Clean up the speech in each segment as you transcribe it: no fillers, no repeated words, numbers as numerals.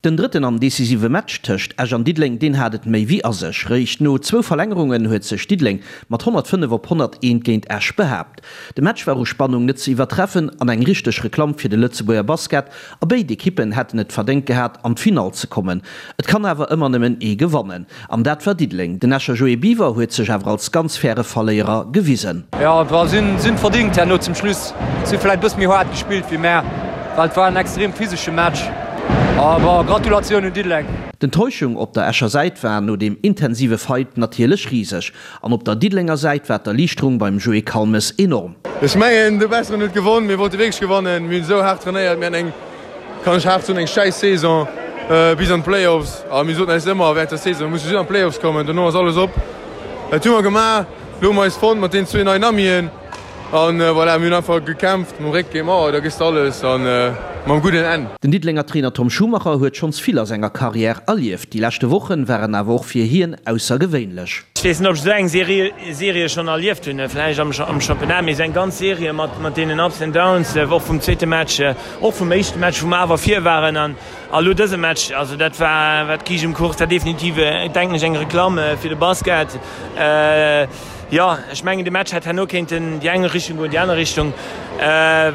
Den drëtten an decisive Match tëscht Esch an Diddeleng, deen hat et méi wéi a sech. Réischt no zwou Verlängerungen huet sech Diddeleng mat 105 op 101 géint Esch behaapt. De Match war u Spannung net ze iwwertreffen an eng richteg Reklamm fir de Lëtzebuerger Basket a béid Ekippen hätten et verdéngt gehat an d'Finall ze kommen. Et kann awer ëmmer nëmmen ee gewannen an dat war Diddeleng. Den Escher Joé Biwer huet sech awer als ganz faire Verléierer gewisen. Jo, si hunn verdingt herno zum Schluss. Si hu vläit e bësse méi haart gespillt wéi mär. Well et war en extrem physesche Match. A bon, Gratulatioun un Diddeleng. D'Enttäuschung op der Escher Säit war no deem intensive Fight natierlech riseg. An op der Diddelenger Säit war d'Erliichterung beim Joé Calmes enorm. Ech mengen, de Besseren huet gewonn. Mir wollte wierklech gewannen. Mir hunn esou haart trainéiert. Mir haten eng, kann ech haart soen, eng schäiss Saison bis an d'Playoffs. A mir soten eis ëmmer während der Saison, mir musse just an d'Playoffs kommen, dono ass alles op. Dat hu mer gemaach. Elo hu mer eis fonnt mat deenen zwee neien Amien. An voilà, mir hunn einfach gekämpft mam Réck géint d'Mauer, da gëss de alles an mam gudden Enn. Den Diddelenger Trainer Tom Schumacher huet schonns vill a senger Karriär erlieft. Déi leschte Wochen waren awer och fir hien aussergewéinlech. Ech weess net, ob ech esou eng Serie schonn erlieft hunn, vläicht am Championnat, mee esou eng ganz Serie mat deenen Ups and Downs, och vum zweete Match, och vum éischte Match, wou mer awer vir waren an elo dëse Match, also dat war, war d'Kiischt um Kuch, dat war definitiv, denken ech, eng Reklamm fir de Basket. Jo, ech mengen de Match hätt herno kéinten déi eng Richtung goen, déi aner Richtung.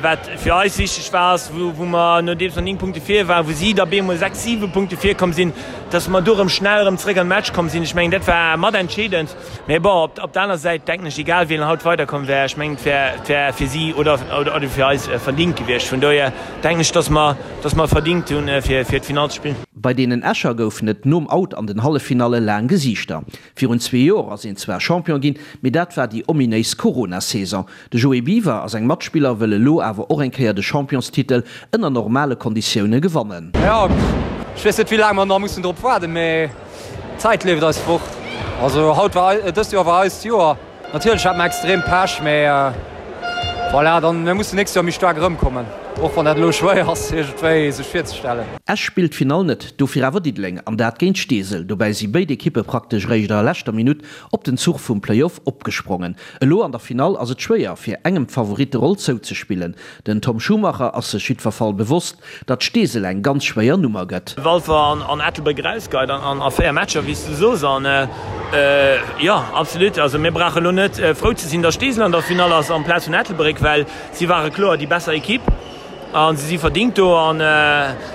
Wat fir eis wichteg war, ass wou mer nodeems mer 9 Punkte vir waren, wou si da bemol 6, 7 Punkte vir komm sinn, datt mer do erëm schnell erëm zréck an de Match komm sinn. Ech mengen dat war mat entscheedend. Mee bon, op der aner Säit denken ech, egal wien haut weiderkomm wär, ech mengen et wär, et wär fir si oder oder fir eis verdingt gewiescht. Vun dohier denken ech, datt mer, datt mer verdingt hunn fir fir d'Finall ze spillen. Bei deenen Escher goufen et nom Out an den Halleffinalle laang Gesiichter. Virun zwee Joer ass een zwar Champion ginn, mee dat war déi ominéis Corona-Saison. De Joé Biwer a seng Matspiller wëlle lo awer och eng Kéier de Championstitel ënner normale Konditioune gewannen. Jo, ech weess net wéi laang mer nach mussen drop waarden, mee d'Zäit leeft eis fort. Also haut war, dëst Joer war eist Joer. Natierlech hat mer extrem Pech, mee voilà, dann mir mussen nächst Joer méi staark erëmkommen, och wann dat elo schwéier ass iergendwéi sech virzestellen. Esch spillt d'Finall net, dofir awer Diddeleng, an dat géint Steesel. Dobäi si béid Ekippe praktesch eréischt a leschter Minutt op den Zuch vum Playoff opgesprongen. Elo an der Finall ass et schwéier, fir engem d'Favoritteroll zouzespillen. Den Tom Schumacher ass sech jiddwer Fall bewosst, datt Steesel eng ganz schwéier Nummer gëtt. Walfer an Ettelbréck erausgeheit an a 4 Matcher, wéi s du sos. An jo, absolut. Also mir brauche elo net frou ze sinn, datt Steesel an der Finall ass amplaz vun Ettelbréck, well si ware kloer déi besser Ekipp a si si verdingt do. An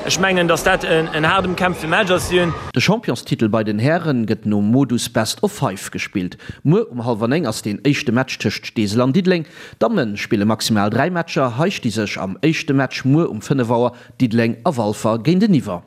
ech mengen, datt dat en haart ëmkämpfte Match ass. Si hunn. De Championstitel bei den Häre gëtt nom Modus Best of Five gespillt. Muer um hallwer 9 ass deen éischte Match tëscht Steesel an Diddeleng. D'Damme spille maximal 3 Matcher, hei sti sech am éischte Match muer um 5 Auer Diddeleng a Walfer géinteniwwer.